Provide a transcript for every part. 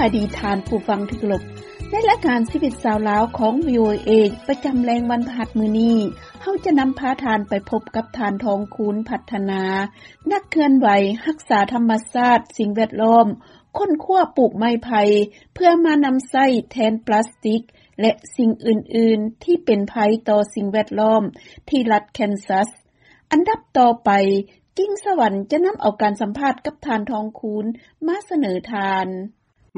ອະດີດທ່ານຜູ້ຟັງທີ່ເຄົາລົບ, ໃນລາຍການຊີວິດຊາວລາວຂອງ ວີໂອເອ ປະຈຳແລງວັນພະຫັດມື້ນີ້, ເຮົາຈະນຳພາທ່ານໄປພົບກັບທ່ານ ທອງຄູນ ພັດທະນາ, ນັກເຄື່ອນໄຫວຮັກສາທຳມະຊາດ, ສິ່ງແວດລ້ອມ, ຄົ້ນຄວ້າປູກໄມ້ໄຜ່ເພື່ອມານຳໃຊ້ແທນປລາສຕິກ ແລະ ສິ່ງອື່ນໆທີ່ເປັນໄພຕໍ່ສິ່ງແວດລ້ອມ ທີ່ລັດແຄນຊັສ. ອັນດັບຕໍ່ໄປ, ກິ່ງສະຫວັນຈະນຳເອົາການສຳພາດກັບທ່ານ ທອງຄູນ ມາສະເໜີທ່ານ.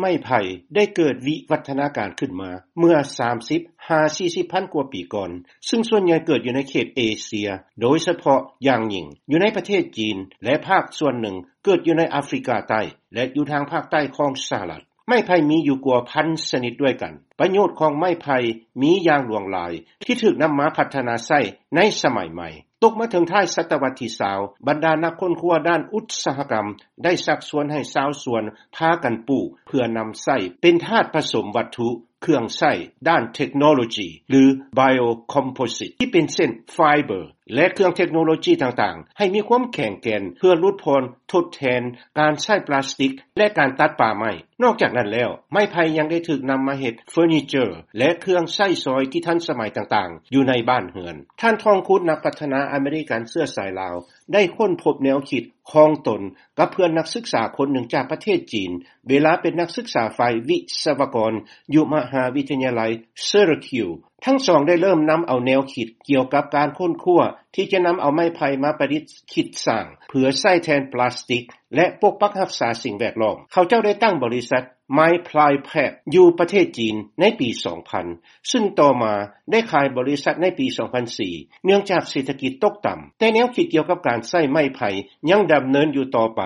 ໄມ້ໄຜ່ໄດ້ເກີດວິວັດທະນາການຂຶ້ນມາເມື່ອສາມສິບຫາສີ່ສິບພັນກວ່າປີກ່ອນ, ຊຶ່ງສ່ວນໃຫຍ່ເກີດຢູ່ໃນເຂດເອເຊຍ, ໂດຍສະເພາະຢ່າງຍິ່ງຢູ່ໃນປະເທດຈີນ ແລະ ພາກສ່ວນໜຶ່ງເກີດຢູ່ໃນອາຟຣິກາໃຕ້ ແລະ ຢູ່ທາງພາກໃຕ້ຂອງສະຫະລັດ. ໄມ້ໄຜ່ມີຢູ່ກວ່າພັນຊະນິດດ້ວຍກັນ. ປະໂຫຍດຂອງໄມ້ໄຜ່ມີຢ່າງຫຼວງຫຼາຍທີ່ຖືກນຳມາພັດທະນາໃຊ້ໃນສະໄໝໃໝ່. ຕົກມາເຖິງທ້າຍສະຕະວັດທີຊາວ, ບັນດານັກຄົ້ນຄວ້າດ້ານອຸດສາຫະກຳໄດ້ຊັກຊວນໃຫ້ຊາວສວນພາກັນປູກເພື່ອນຳໃຊ້ເປັນທາດປະສົມວັດຖຸ, ເຄື່ອງໃຊ້ດ້ານເທັກໂນໂລຈີ ຫຼື Biocomposite ທີ່ເປັນເຊັ່ນ ໄຟເບີ ແລະ ເຄື່ອງເທັກໂນໂລຈີຕ່າງໆ ໃຫ້ມີຄວາມແຂງແກ່ນເພື່ອຫຼຸດຜ່ອນທົດແທນການໃຊ້ປລາສຕິກ ແລະ ການຕັດປ່າໄມ້. ນອກຈາກນັ້ນແລ້ວ, ໄມ້ໄຜ່ຍັງໄດ້ຖືກນຳມາເຮັດເຟີນີເຈີ ແລະ ເຄື່ອງໃຊ້ສອຍທີ່ທັນສະໄໝຕ່າງໆ ຢູ່ໃນບ້ານເຮືອນ. ທ່ານ ທອງຄູນ ນັກພັດທະນາອາເມລິກັນເຊື້ອສາຍລາວ ໄດ້ຄົ້ນພົບແນວຄິດຂອງຕົນກັບເພື່ອນນັກສຶກສາຄົນໜຶ່ງຈາກປະເທດຈີນ ເວລາເປັນນັກສຶກສາຝ່າຍວິສະວະກອນຢູ່ມະຫາວິທະຍາໄລ Syracuse. ທັງສອງໄດ້ເລີ່ມນຳເອົາແນວຄິດກ່ຽວກັບການຄົ້ນຄວ້າທີ່ຈະນຳເອົາໄມ້ໄຜ່ມາປະດິດຄິດສ້າງເພື່ອໃຊ້ແທນປລາສຕິກ ແລະ ປົກປັກຮັກສາສິ່ງແວດລ້ອມ. ເຂົາເຈົ້າໄດ້ຕັ້ງບໍລິສັດ Miplypack ຢູ່ປະເທດຈີນໃນປີສອງພັນ ຊຶ່ງຕໍ່ມາໄດ້ຂາຍບໍລິສັດໃນປີສອງພັນສີ່ ເນື່ອງຈາກເສດຖະກິດຕົກຕ່ຳ. ແຕ່ແນວຄິດກ່ຽວກັບການໃຊ້ໄມ້ໄຜ່ຍັງດຳເນີນຢູ່ຕໍ່ໄປ,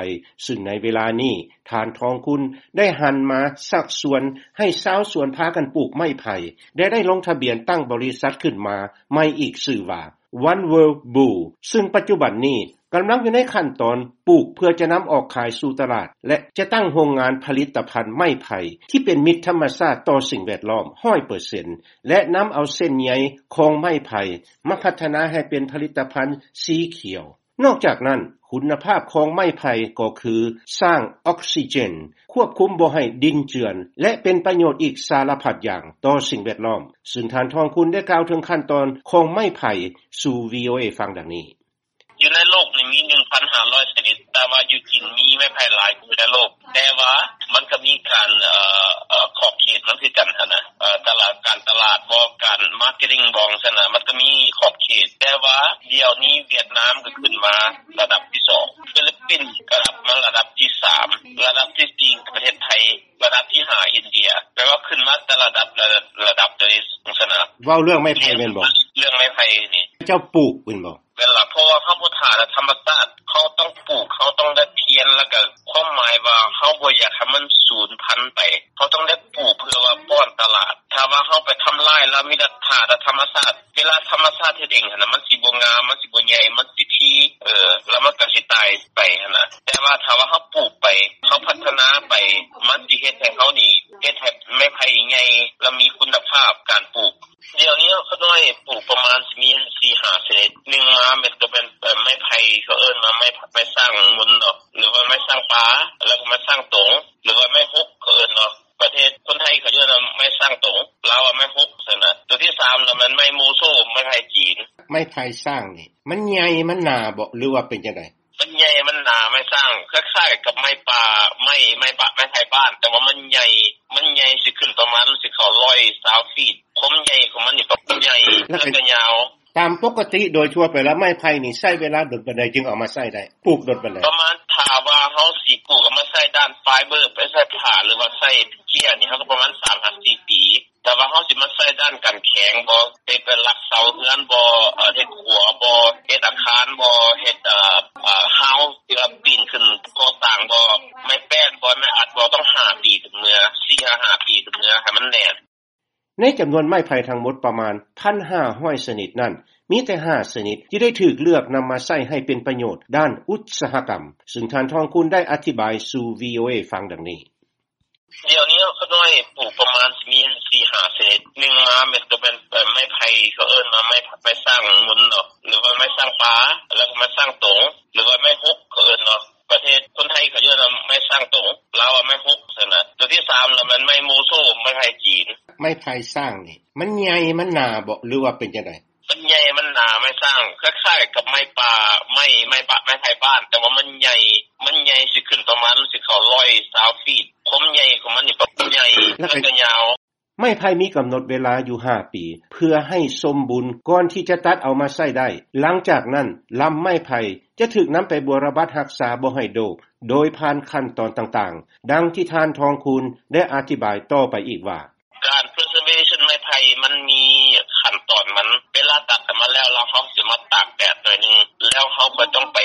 ຊຶ່ງໃນເວລານີ້ ທ່ານ ທອງຄູນ ໄດ້ຫັນມາຊັກຊວນໃຫ້ຊາວສວນພາກັນປູກໄມ້ໄຜ່ ແລະ ໄດ້ລົງທະບຽນຕັ້ງບໍລິສັດຂຶ້ນມາໃໝ່ອີກຊື່ວ່າ One World Boo ຊຶ່ງປັດຈຸບັນນີ້ກຳລັງຢູ່ໃນຂັ້ນຕອນປູກເພື່ອຈະນຳອອກຂາຍສູ່ຕະຫຼາດ ແລະ ຈະຕັ້ງໂຮງງານຜະລິດຕະພັນໄມ້ໄຜ່ທີ່ເປັນມິດທຳມະຊາດຕໍ່ສິ່ງແວດລ້ອມຮ້ອຍເປີເຊັນ ແລະ ນຳເອົາເສັ້ນໃຍຂອງໄມ້ໄຜ່ມາພັດທະນາໃຫ້ເປັນຜະລິດຕະພັນສີຂຽວ. ນອກຈາກນັ້ນ, ຄຸນນະພາບຂອງໄມ້ໄຜ່ກໍຄືສ້າງອອກຊີເຈນ, ຄວບຄຸມບໍ່ໃຫ້ດິນເຈື່ອນ ແລະ ເປັນປະໂຫຍດອີກສາລະພັດຢ່າງຕໍ່ສິ່ງແວດລ້ອມ, ຊຶ່ງທ່ານ ທອງຄູນ ໄດ້ກ່າວເຖິງຂັ້ນຕອນຂອງໄມ້ໄຜ່ສູ່ ວີໂອເອ ຟັງດັ່ງນີ້. ຢູ່ໃນໂລກນີ້ມີໜຶ່ງພັນຫ້າຮ້ອຍຊະນິດ, ແຕ່ວ່າຢູ່ຈີນມີໄມ້ໄຜ່ຫຼາຍກວ່າໃນໂລກ, ແຕ່ວ່າມັນກໍມີການ ເອີ ເອີ ຂອບເຂດມັນຄືກັນຫັ້ນນະ, ເອີ ຕະຫຼາດ ການຕະຫຼາດບໍ ການມາເກັດຕິງບໍ ຊັ້ນນະ, ມັນກໍມີຂອບເຂດ. ແຕ່ວ່າດຽວນີ້ຫວຽດນາມກໍຂຶ້ນມາລະດັບທີສອງ, ຟີລິບປິນກໍກັບມາລະດັບທີສາມ, ລະດັບທີສີ່ປະເທດໄທ, ລະດັບທີຫ້າອິນເດຍ, ແປວ່າຂຶ້ນມາແຕ່ລະດັບ ລະດັບໂດຍຊັ້ນນະ. ເວົ້າເລື່ອງໄມ້ໄຜ່ແມ່ນບໍ່? ເລື່ອງໄມ້ໄຜ່ນີ້ ເຈົ້າປູກແມ່ນບໍ່? ແມ່ນລະ, ເພາະວ່າເຮົາບໍ່ຖ້າແຕ່ທຳມະຊາດ, ເຮົາຕ້ອງປູກ, ເຮົາຕ້ອງໄດ້ພຽນ, ແລ້ວກໍຄວາມໝາຍວ່າເຮົາບໍ່ຢາກໃຫ້ມັນສູນພັນໄປ, ເຮົາຕ້ອງໄດ້ປູກເພື່ອວ່າປ້ອນຕະຫຼາດ. ຖ້າວ່າເຮົາໄປທຳລາຍລະ ມີແຕ່ຖ້າແຕ່ທຳມະຊາດ, ເວລາທຳມະຊາດເຮັດເອງຫັ້ນນະ, ມັນຊິບໍ່ງາມ, ມັນຊິບໍ່ໃຫຍ່, ມັນຊິຖີ່, ເອີ ລະມັນກໍຊິຕາຍໄປຫັ້ນນະ. ແຕ່ວ່າຖ້າວ່າເຮົາປູກໄປ, ເຮົາພັດທະນາໄປ, ມັນຊິເຮັດໃຫ້ເຮົານີ້, ເຮັດໃຫ້ໄມ້ໄຜ່ໃຫຍ່ ລະມີຄຸນນະພາບການປູກ. ດຽວນີ້ຂ້ານ້ອຍປູກປະມານຊິມີສີ່ຫ້າຊະນິດ. ໜຶ່ງມາແມ່ນກໍແມ່ນ ເອີ ໄມ້ໄຜ່ ເຂົາເອີ້ນວ່າໄມ້ ໄມ້ສ້າງມົນເນາະ ຫຼືວ່າໄມ້ສ້າງປ່າ, ແລ້ວກໍໄມ້ສ້າງຕົງ ຫຼືວ່າໄມ້ຮົກ ເຂົາເອີ້ນເນາະ. ປະເທດຄົນໄທເຂົາເອີ້ນວ່າໄມ້ສ້າງຕົງ, ລາວວ່າໄມ້ຮົກຊັ້ນນະ. ຕົວທີສາມລະແມ່ນໄມ້ໂມໂຊ, ໄມ້ໄຜ່ຈີນ. ໄມ້ໄຜ່ສ້າງນີ້ ມັນໃຫຍ່ ມັນໜາບໍ ຫຼືວ່າເປັນຈັ່ງໃດ? ມັນໃຫຍ່ ມັນໜາ, ໄມ້ສ້າງຄ້າຍໆກັບໄມ້ປ່າ, ໄມ້ ໄມ້ປ່າ ໄມ້ໄຜ່ບ້ານ, ແຕ່ວ່າມັນໃຫຍ່, ມັນໃຫຍ່ ຊິຂຶ້ນປະມານ ຊິເຂົ້າຮ້ອຍຊາວຟີດ. ຄວາມໃຫຍ່ຂອງມັນນີ້ກໍໃຫຍ່ ແລ້ວກໍຍາວ. ຕາມປົກກະຕິໂດຍທົ່ວໄປແລ້ວ ໄມ້ໄຜ່ນີ້ໃຊ້ເວລາດົນປານໃດຈຶ່ງເອົາມາໃຊ້ໄດ້? ປູກດົນປານໃດ? ປະມານ ຖ້າວ່າເຮົາຊິປູກເອົາມາໃຊ້ດ້ານໄຟເບີ ໄປໃສ່ຜ້າ ຫຼືວ່າໃສ່ເກຍນີ້ ເຮົາກໍປະມານສາມຫາສີ່ປີ. ແຕ່ວ່າເຮົາຊິມາໃຊ້ດ້ານການແຂງບໍ ເຮັດເປັນຫຼັກເສົາເຮືອນບໍ ເຮັດຂົວບໍ ເຮັດອາຄານບໍ ເຮັດ ເອີ ຮາວທີ່ວ່າປີນຂຶ້ນກໍ່ສ້າງບໍ ໄມ້ແປ້ນບໍ ໄມ້ອັດບໍ ຕ້ອງຫ້າປີເຖິງເມື່ອ, ສີ່ຫາຫ້າປີເຖິງເມື່ອ ໃຫ້ມັນແໜ້ນ. ໃນຈຳນວນໄມ້ໄຜ່ທັງໝົດປະມານ ໜຶ່ງພັນຫ້າຮ້ອຍຊະນິດນັ້ນ, ມີແຕ່ຫ້າຊະນິດທີ່ໄດ້ຖືກເລືອກນຳມາໃຊ້ໃຫ້ເປັນປະໂຫຍດດ້ານອຸດສາຫະກຳ, ຊຶ່ງທ່ານ ທອງຄູນ ໄດ້ອະທິບາຍສູ່ ວີໂອເອ ຟັງດັ່ງນີ້. ດຽວນີ້ຂ້ານ້ອຍປູກປະມານຊິມີສີ່ຫ້າຊະນິດ. ໜຶ່ງມາແມ່ນກໍແມ່ນ ເອີ ໄມ້ໄຜ່ ເຂົາເອີ້ນວ່າໄມ້ ໄມ້ສ້າງມົນເນາະ ຫຼືວ່າໄມ້ສ້າງປ່າ ແລ້ວກໍໄມ້ສ້າງຕົງ ຫຼືວ່າໄມ້ຮົກ ເຂົາເອີ້ນເນາະ. ປະເທດຄົນໄທເຂົາເອີ້ນວ່າໄມ້ສ້າງຕົງ, ລາວວ່າໄມ້ຮົກຊັ້ນນະ. ຕົວທີ ສາມລະແມ່ນໄມ້ໂມໂຊ ໄມ້ໄຜ່ຈີນ. ໄມ້ໄຜ່ຊ້າງນີ້ ມັນໃຫຍ່ ມັນໜາບໍ ຫຼືວ່າເປັນຈັ່ງໃດ? ມັນໃຫຍ່ ມັນໜາ ໄມ້ຊ້າງ ຄ້າຍໆກັບໄມ້ປ່າ ໄມ້ ໄມ້ປ່າ ໄມ້ໄຜ່ບ້ານ ແຕ່ວ່າມັນໃຫຍ່ ມັນໃຫຍ່ ຊິຂຶ້ນປະມານ ຊິເຂົ້າຮ້ອຍຊາວຟີດ. ຄວາມໃຫຍ່ຂອງມັນນີ້ ແບບໃຫຍ່ ແລ້ວກໍ ແລ້ວກໍຍາວ. ໄມ້ໄຜ່ມີກຳນົດເວລາຢູ່ຫ້າປີ ເພື່ອໃຫ້ສົມບູນກ່ອນທີ່ຈະຕັດເອົາມາໃຊ້ໄດ້. ຫຼັງຈາກນັ້ນ ລຳໄມ້ໄຜ່ຈະຖືກນຳໄປບົວລະບັດຮັກສາບໍ່ໃຫ້ໂດກ ໂດຍຜ່ານຂັ້ນຕອນຕ່າງໆ ດັ່ງທີ່ທ່ານ ທອງຄູນ ໄດ້ອະທິບາຍຕໍ່ໄປອີກວ່າ: ການ preservation ໄມ້ໄຜ່ມັນມີຂັ້ນຕອນມັນ. ເວລາຕັດອອກມາແລ້ວ ແລ້ວເຮົາຊິມາຕາກແດດໜ້ອຍໜຶ່ງ ແລ້ວເຮົາກໍຕ້ອງໄປ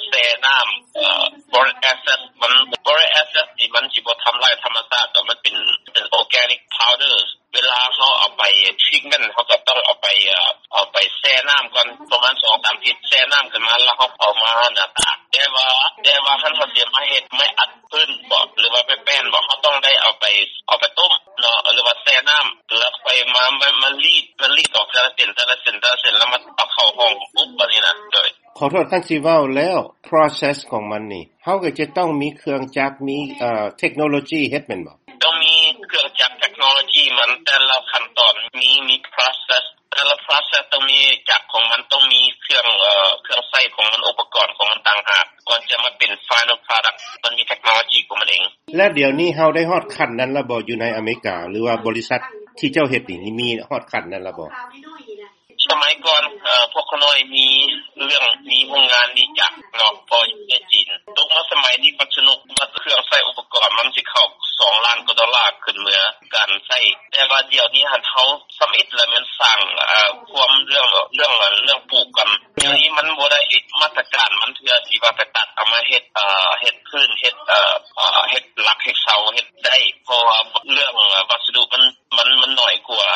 ແຊ່ນ້ຳ ເອີ boric acid ມັນ. Boric acid ນີ້ມັນຊິບໍ່ທຳລາຍທຳມະຊາດດອກ ມັນເປັນ ເປັນ organic powder. ເວລາເຮົາເອົາໄປ treatment ເຮົາກໍຕ້ອງເອົາໄປ ເອີ ເອົາໄປແຊ່ນ້ຳກ່ອນ ປະມານສອງສາມທິດ ແຊ່ນ້ຳຂຶ້ນມາ ແລ້ວເຮົາເອົາມາໜ້າຕາກ. ແຕ່ວ່າ ແຕ່ວ່າຄັນເຮົາຊິມາເຮັດໄມ້ອັດພື້ນບໍ ຫຼືວ່າໄມ້ແປ້ນບໍ ເຮົາຕ້ອງໄດ້ເອົາໄປ ເອົາໄປຕົ້ມເນາະ ຫຼືວ່າແຊ່ນ້ຳ ແລ້ວຄ່ອຍມາ ມາ ມາລີດ ມາລີດອອກແຕ່ລະເສັ້ນ ແຕ່ລະເສັ້ນ ແຕ່ລະເສັ້ນ ແລ້ວມາເອົາເຂົ້າຫ້ອງອົບ ແບບນີ້ນະ. ໂດຍ ຂໍໂທດ ຄັນຊິເວົ້າແລ້ວ process ຂອງມັນນີ້ ເຮົາກໍຈະຕ້ອງມີເຄື່ອງຈັກ ມີ ເອີ ເທັກໂນໂລຈີເຮັດແມ່ນບໍ່? ຕ້ອງມີເຄື່ອງຈັກ ເທັກໂນໂລຈີມັນ ແຕ່ລະຂັ້ນຕອນມີ ມີ process ແຕ່ລະ process ຕ້ອງມີຈັກຂອງມັນ ຕ້ອງມີເຄື່ອງ ເອີ ເຄື່ອງໃຊ້ຂອງມັນ ອຸປະກອນຂອງມັນຕ່າງຫາກ ກ່ອນຈະມາເປັນ final product ມັນມີເທັກໂນໂລຈີຂອງມັນເອງ. ແລະ ດຽວນີ້ເຮົາໄດ້ຮອດຂັ້ນນັ້ນແລ້ວບໍ່? ຢູ່ໃນອາເມລິກາ ຫຼືວ່າບໍລິສັດທີ່ເຈົ້າເຮັດນີ້ ມີຮອດຂັ້ນນັ້ນແລ້ວບໍ່? ສະໄໝກ່ອນ ເອີ ພວກຂ້ານ້ອຍມີເລື່ອງ ມີໂຮງງານ ມີຈັກເນາະ ເພາະຢູ່ປະເທດຈີນ. ຕົກມາສະໄໝນີ້ມັນສະໜຸກ ເຄື່ອງໃຊ້ອຸປະກອນມັນຊິເຂົ້າສອງລ້ານກວ່າໂດລາ ຂຶ້ນເມືອການໃຊ້. ແຕ່ວ່າດຽວນີ້ຫັ້ນ ເຮົາທຳອິດລະແມ່ນສ້າງ ເອີ ຄວາມເລື່ອງ ເລື່ອງ ເລື່ອງປູກກ່ອນ. ດຽວນີ້ມັນບໍ່ໄດ້ມາດຕະການມັນເທື່ອ ທີ່ວ່າໄປຕັດເອົາມາເຮັດ ເອີ ເຮັດພື້ນ ເຮັດ ເອີ ເຮັດຫຼັກ ເຮັດເສົາ ເຮັດໄດ້ ເພາະວ່າເລື່ອງວັດສະດຸມັນ ມັນ ມັນໜ້ອຍກວ່າ.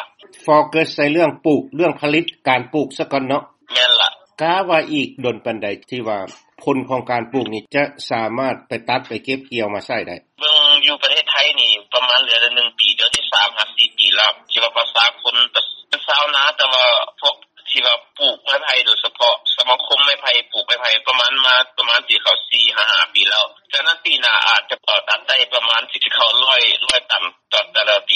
ໂຟກັສໃສ່ເລື່ອງປູກ ເລື່ອງຜະລິດ ການປູກຊະກ່ອນເນາະ. ແມ່ນລະ. ກະວ່າອີກດົນປານໃດທີ່ວ່າຜົນຂອງການປູກນີ້ຈະສາມາດໄປຕັດໄປເກັບກ່ຽວມາໃຊ້ໄດ້? ເບິ່ງຢູ່ປະເທດໄທນີ້ປະມານເຫຼືອໜຶ່ງປີ ດຽວນີ້ສາມຫາສີ່ປີແລ້ວ ທີ່ວ່າປະຊາຊົນເປັນຊາວນາ ແຕ່ວ່າພວກທີ່ວ່າປູກໄມ້ໄຜ່ ໂດຍສະເພາະສະມາຄົມໄມ້ໄຜ່ ປູກໄມ້ໄຜ່ປະມານ ມາປະມານຊິເຂົ້າສີ່ຫາຫ້າປີແລ້ວ. ສະນັ້ນປີໜ້າອາດຈະ ເອີ ຕັດໄດ້ປະມານ ຊິເຂົ້າຮ້ອຍ ຮ້ອຍຕັນຕໍ່ແຕ່ລະປ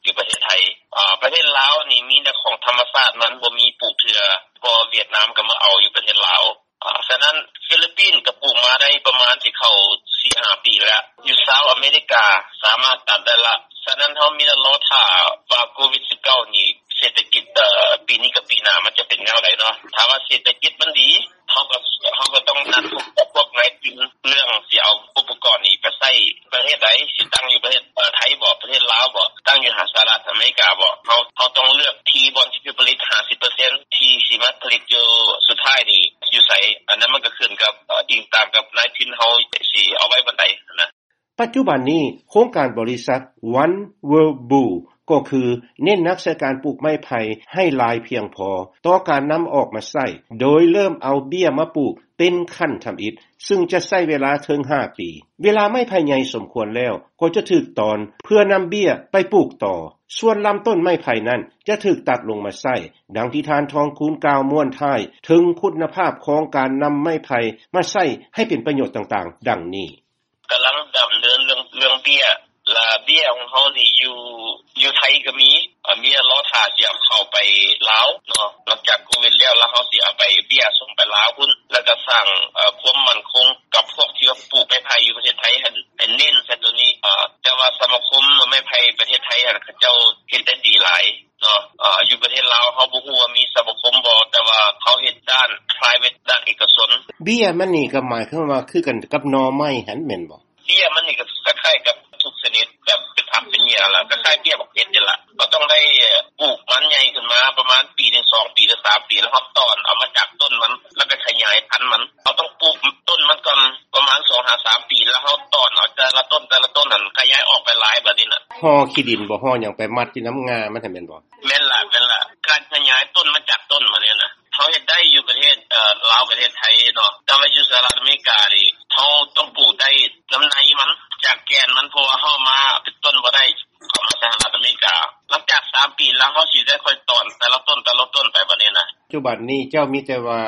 ີຢູ່ປະເທດໄທ. ອາ ປະເທດລາວນີ້ມີແຕ່ຂອງທຳມະຊາດ ມັນບໍ່ມີປູກເທື່ອ ເພາະຫວຽດນາມກໍມາເອົາຢູ່ປະເທດລາວ. ອາ ສະນັ້ນຟີລິບປິນກໍປູກມາໄດ້ປະມານຊິເຂົ້າສີ່ຫ້າປີແລ້ວ. ຢູ່ຊາວອາເມລິກາສາມາດຕັດໄດ້ລະ. ສະນັ້ນເຮົາມີແຕ່ລໍຖ້າວ່າໂຄວິດສິບເກົ້ານີ້ ເສດຖະກິດ ເອີ ປີນີ້ກັບປີໜ້າມັນຈະເປັນແນວໃດເນາະ. ຖ້າວ່າເສດຖະກິດມັນດີ ເຮົາກໍ ເຮົາກໍຕ້ອງນັດພົບກັບພວກນາຍທຶນ ເລື່ອງຊິເອົາອຸປະກອນນີ້ໄປໃຊ້ປະເທດໃດ ຊິຕັ້ງຢູ່ປະເທດ ເອີ ໄທບໍ ປະເທດລາວບໍ ຕັ້ງຢູ່ຫາສະຫະລັດອາເມລິກາບໍ. ເຮົາ ເຮົາຕ້ອງເລືອກທີ່ບ່ອນທີ່ຈະຜະລິດຫ້າສິບເປີເຊັນ ທີ່ຊິມາຜະລິດຢູ່ສຸດທ້າຍນີ້ຢູ່ໃສ. ອັນນັ້ນມັນກໍຂຶ້ນກັບ ເອີ ອີງຕາມກັບນາຍທຶນເຮົາຊິເອົາໄວ້ບ່ອນໃດນະ. ປັດຈຸບັນນີ້ ໂຄງການບໍລິສັດ One World Blue ກໍຄືເນັ້ນໜັກໃສ່ການປູກໄມ້ໄຜ່ໃຫ້ຫຼາຍພຽງພໍຕໍ່ການນຳອອກມາໃຊ້ ໂດຍເລີ່ມເອົາເບ້ຍມາປູກເປັນຂັ້ນທຳອິດ ຊຶ່ງຈະໃຊ້ເວລາເຖິງຫ້າປີ. ເວລາໄມ້ໄຜ່ໃຫຍ່ສົມຄວນແລ້ວ ກໍຈະຖືກຕອນເພື່ອນຳເບ້ຍໄປປູກຕໍ່. ສ່ວນລຳຕົ້ນໄມ້ໄຜ່ນັ້ນຈະຖືກຕັດລົງມາໃຊ້, ດັ່ງທີ່ທ່ານ ທອງຄູນ ກ່າວມ້ວນທ້າຍເຖິງຄຸນນະພາບຂອງການນຳໄມ້ໄຜ່ມາໃຊ້ໃຫ້ເປັນປະໂຫຍດຕ່າງໆ ດັ່ງນີ້. ກຳລັງດຳເນີນເລື່ອງ ເລື່ອງເບ້ຍ ລະເບ້ຍຂອງເຮົານີ້ຢູ່ ຢູ່ໄທກໍມີ ເອີ ມີລໍຖ້າຊິເອົາເຂົ້າໄປລາວເນາະ ຫຼັງຈາກໂຄວິດແລ້ວ ລະເຮົາຊິເອົາໄປເບ້ຍສົ່ງໄປລາວພຸ້ນ ລະກະສ້າງ ເອີ ຄວາມໝັ້ນຄົງກັບພວກທີ່ວ່າປູກໄມ້ໄຜ່ຢູ່ປະເທດໄທຫັ້ນ ໃຫ້ເນັ້ນໃສ່ໂຕນີ້. ເອີ ແຕ່ວ່າສະມາຄົມໄມ້ໄຜ່ປະເທດໄທຫັ້ນ ເຂົາເຈົ້າເຮັດໄດ້ດີຫຼາຍ ເນາະ ເອີ ຢູ່ປະເທດລາວເຮົາບໍ່ຮູ້ວ່າມີສະມາຄົມບໍ່ ແຕ່ວ່າເຮົາເຮັດດ້ານ private ດ້ານເອກະຊົນ. ເບ້ຍມັນນີ້ກໍໝາຍຄວາມວ່າຄືກັນກັບໜໍ່ໄມ້ຫັ້ນແມ່ນບໍ່? ເບ້ຍມັນນີ້ກໍຄ້າຍໆກັບທຸກຊະນິດ ແບບເປັນຜັກເປັນຫຍ້າລະ ຄ້າຍໆເບ້ຍບັກເພັດນີ້ລະ. ເຮົາຕ້ອງໄດ້ປູກມັນໃຫຍ່ຂຶ້ນມາປະມານປີໜຶ່ງ ສອງປີ ຫຼື ສາມປີ ລະເຮົາຕອນເອົາມາຈາກຕົ້ນມັນ ລະໄປຂະຫຍາຍພັນມັນ. ເຮົາຕ້ອງປູກຕົ້ນມັນກ່ອນປະມານສອງຫາສາມປີ ລະເຮົາຕອນເອົາແຕ່ລະຕົ້ນ ແຕ່ລະຕົ້ນຫັ້ນ ຂະຫຍາຍອອກໄປຫຼາຍບາດນີ້ນະ. ຫໍ່ຂີ້ດິນບໍ່ ຫໍ່ຫຍັງໄປມັດຢູ່ນຳງ່າມັນຫັ້ນແມ່ນບໍ່? ແມ່ນລະ ແມ່ນລະ ການຂະຫຍາຍຕົ້ນມາຈາກຕົ້ນມານີ້ນະ ເຮົາເຮັດໄດ້ຢູ່ປະເທດ ເອີ ລາວ ປະເທດໄທເນາະ ແຕ່ວ່າຢູ່ສະຫະລັດອາເມລິການີ້ ເຮົາຕ້ອງປູກໄດ້ນຳໃນມັນ ຈາກແກ່ນມັນ ເພາະວ່າເຮົາເອົາມາເປັນຕົ້ນບໍ່ໄດ້ ເຂົ້າມາສະຫະລັດອາເມລິກາ. ຫຼັງຈາກສາມປີແລ້ວ ເຮົາຊິໄດ້ຄ່ອຍຕອນແຕ່ລະຕົ້ນ ແຕ່ລະຕົ້ນໄປບາດນີ້ນະ. ປັດຈຸບັນນີ້ເຈົ້າມີແຕ່ວ່າ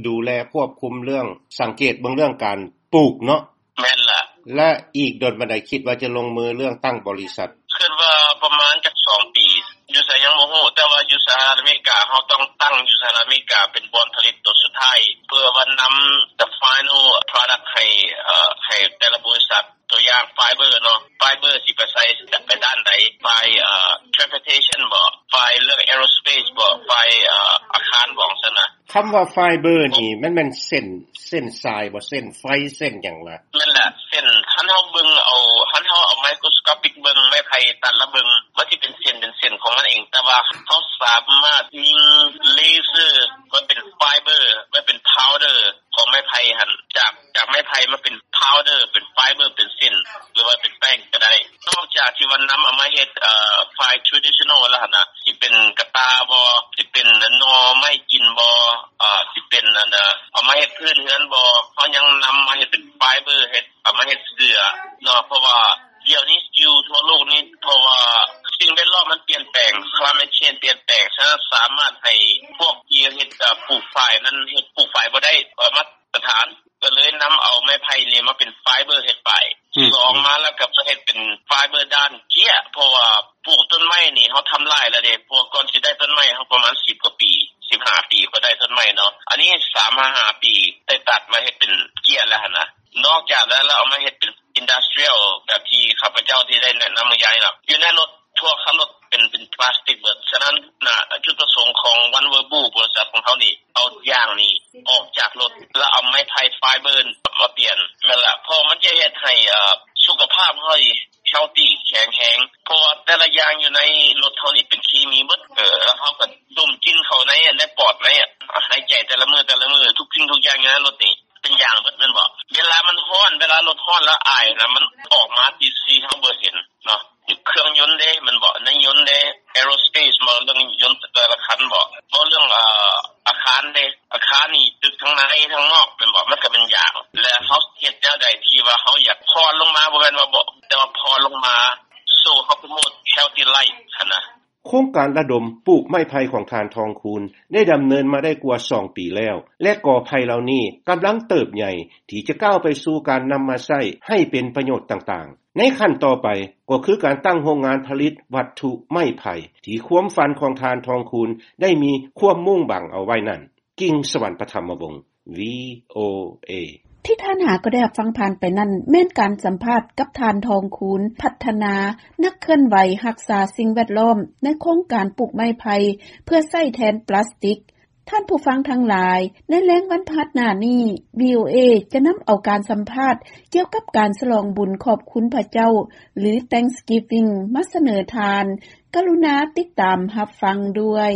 ດູແລຄວບຄຸມເລື່ອງ ສັງເກດເບິ່ງເລື່ອງການປູກເນາະ? ແມ່ນລະ. ແລະ ອີກດົນປານໃດຄິດວ່າຈະລົງມືເລື່ອງຕັ້ງບໍລິສັດ? ຄິດວ່າປະມານຈັກສອງປີ. ຢູ່ໃສຍັງບໍ່ຮູ້, ແຕ່ວ່າຢູ່ສະຫະລັດອາເມລິກາ ເຮົາຕ້ອງຕັ້ງຢູ່ສະຫະລັດອາເມລິກາເປັນບ່ອນຜະລິດໂຕສຸດທ້າຍ ເພື່ອວ່ານຳ the final product ໃຫ້ ເອີ ໃຫ້ແຕ່ລະບໍລິສັດ. ຕົວຢ່າງໄຟເບີເນາະ, ໄຟເບີຊິໄປໃສ່ ໄປດ້ານໃດ? ໄຟ ເອີ transportation ບໍ? ໄຟເລື່ອງ aerospace ບໍ? ໄຟ ເອີ ອາຄານບໍ? ຊັ້ນນະ. ຄຳວ່າໄຟເບີນີ້ ມັນແມ່ນເສັ້ນ ເສັ້ນສາຍບໍ? ເສັ້ນໄຟ ເສັ້ນຫຍັງລະ? ແມ່ນລະ, ເສັ້ນ ຄັນເຮົາເບິ່ງເອົາ ຄັນເຮົາເອົາ microscopic ເບິ່ງໄມ້ໄຜ່ຕັດລະເບິ່ງ ມັນຊິເປັນເສັ້ນ ເປັນເສັ້ນຂອງມັນເອງ, ແຕ່ວ່າເຮົາສາມາດຍິງເລເຊີມາເປັນໄຟເບີ ມາເປັນ powder ຂອງໄມ້ໄຜ່ຫັ້ນ ຈາກ ຈາກໄມ້ໄຜ່ມາເປັນ powder ເປັນໄຟເບີ ເປັນເສັ້ນ ຫຼືວ່າເປັນແປ້ງກໍໄດ້. ນອກຈາກທີ່ວ່ານຳເອົາມາເຮັດ ເອີ ໄຟ traditional ແລ້ວຫັ້ນນະ, ຊິເປັນກະຕ່າບໍ? ຊິເປັນໜໍ່ໄມ້ກິນບໍ? ເອີ ຊິເປັນອັນນະ ເອົາມາເຮັດພື້ນເຮືອນບໍ? ເຮົາຍັງນຳມາເຮັດເປັນໄຟເບີ ເຮັດ ເອົາມາເຮັດເສື້ອເນາະ, ເພາະວ່າດຽວນີ້ຢູ່ທົ່ວໂລກນີ້ ເພາະວ່າສິ່ງແວດລ້ອມມັນປ່ຽນແປງ climate change ປ່ຽນແປງ, ສະນັ້ນສາມາດໃຫ້ພວກທີ່ເຮັດ ເອີ ປູກຝ້າຍນັ້ນ ເຮັດປູກຝ້າຍບໍ່ໄດ້ ເອີ ມາດຕະຖານ, ກໍເລີຍນຳເອົາໄມ້ໄຜ່ນີ້ມາເປັນໄຟເບີເຮັດຝ້າຍ. ອືມ ສອງມາແລ້ວກໍມາເຮັດເປັນໄຟເບີດ້ານເກ້ຍ, ເພາະວ່າປູກຕົ້ນໄມ້ນີ້ເຮົາທຳລາຍແລ້ວເດ້, ເພາະວ່າກ່ອນຊິໄດ້ຕົ້ນໄມ້ເຮົາປະມານສິບກວ່າປີ ສິບຫ້າປີ ກໍໄດ້ຕົ້ນໄມ້ເນາະ, ອັນນີ້ສາມຫາຫ້າປີໄດ້ຕັດມາເຮັດເປັນເກ້ຍແລ້ວຫັ້ນນະ. ນອກຈາກນັ້ນແລ້ວ ເອົາມາເຮັດເປັນ industrial ແບບທີ່ຂ້າພະເຈົ້າທີ່ໄດ້ແນະນຳເມື່ອກີ້ນີ້ເນາະ, ຢູ່ໃນລົດ ທົ່ວຄັນລົດເປັນ ເປັນພລາສຕິກເບິດ. ສະນັ້ນນະ ຈຸດປະສົງຂອງ One Verbund ບໍລິສັດຂອງເຮົານີ້ ເອົາຢາງນີ້ອອກຈາກລົດ ແລ້ວເອົາໄມ້ໄຜ່ໄຟເບີມາປ່ຽນ. ແມ່ນລະ, ເພາະມັນຈະເຮັດໃຫ້ ເອີ ສຸຂະພາບເຮົານີ້ healthy ແຂງແຮງ, ເພາະວ່າແຕ່ລະຢ່າງຢູ່ໃນລົດເຮົານີ້ເປັນເຄມີເບິດ, ເອີ ແລ້ວເຮົາກໍດົມກິ່ນເຂົ້າໃນ ໃນປອດ ໃນຫາຍໃຈແຕ່ລະມື້ ແຕ່ລະມື້ ທຸກສິ່ງທຸກຢ່າງຢູ່ໃນລົດນີ້ ເປັນຢາງເບິດແມ່ນບໍ່? ເວລາມັນຮ້ອນ ເວລາລົດຮ້ອນແລ້ວອາຍນະ ມັນອອກມາທີ່ ທີ່ເຮົາບໍ່ເຫັນເນາະ. ເຄື່ອງຍົນເດ້ແມ່ນບໍ່? ໃນຍົນເດ້ aerospace ບໍ່? ເລື່ອງຍົນແຕ່ລະຄັນບໍ່? ບໍ່? ເລື່ອງ ເອີ ອາຄານເດ້ ອາຄານນີ້ ຕຶກທັງໃນທັງນອກແມ່ນບໍ່? ມັນກໍເປັນຢາງ. ແລະ ເຮົາເຮັດແນວໃດທີ່ວ່າເຮົາຢາກຜ່ອນລົງມາ ບໍ່ແມ່ນວ່າບໍ່ ແຕ່ວ່າຜ່ອນລົງມາ so ເຮົາ promote healthy life ຫັ້ນນະ. ໂຄງການລະດົມປູກໄມ້ໄຜ່ຂອງທ່ານ ທອງຄູນ ໄດ້ດຳເນີນມາໄດ້ກວ່າສອງປີແລ້ວ ແລະ ກໍໄຜ່ເຫຼົ່ານີ້ກຳລັງເຕີບໃຫຍ່ ທີ່ຈະກ້າວໄປສູ່ການນຳມາໃຊ້ໃຫ້ເປັນປະໂຫຍດຕ່າງໆ. ໃນຂັ້ນຕໍ່ໄປກໍຄືການຕັ້ງໂຮງງານຜະລິດວັດຖຸໄມ້ໄຜ່ ທີ່ຄວາມຝັນຂອງທ່ານ ທອງຄູນ ໄດ້ມີຄວາມມຸ່ງຫວັງເອົາໄວ້ນັ້ນ. ກິ່ງສະຫວັນ ປະຖຳມະວົງ ວີໂອເອ. ທີ່ທ່ານຫາກໍໄດ້ຮັບຟັງຜ່ານໄປນັ້ນ ແມ່ນການສຳພາດກັບທ່ານ ທອງຄູນ ພັດທະນາ ນັກເຄື່ອນໄຫວຮັກສາສິ່ງແວດລ້ອມ ໃນໂຄງການປູກໄມ້ໄຜ່ເພື່ອໃຊ້ແທນປລາສຕິກ. ທ່ານຜູ້ຟັງທັງຫຼາຍ, ໃນແລງວັນພະຫັດໜ້ານີ້ ວີໂອເອ ຈະນຳເອົາການສຳພາດກ່ຽວກັບການສະຫຼອງບຸນຂອບຄຸນພະເຈົ້າ ຫຼື Thanksgiving ມາສະເໜີທ່ານ. ກະລຸນາຕິດຕາມຮັບຟັງດ້ວຍ.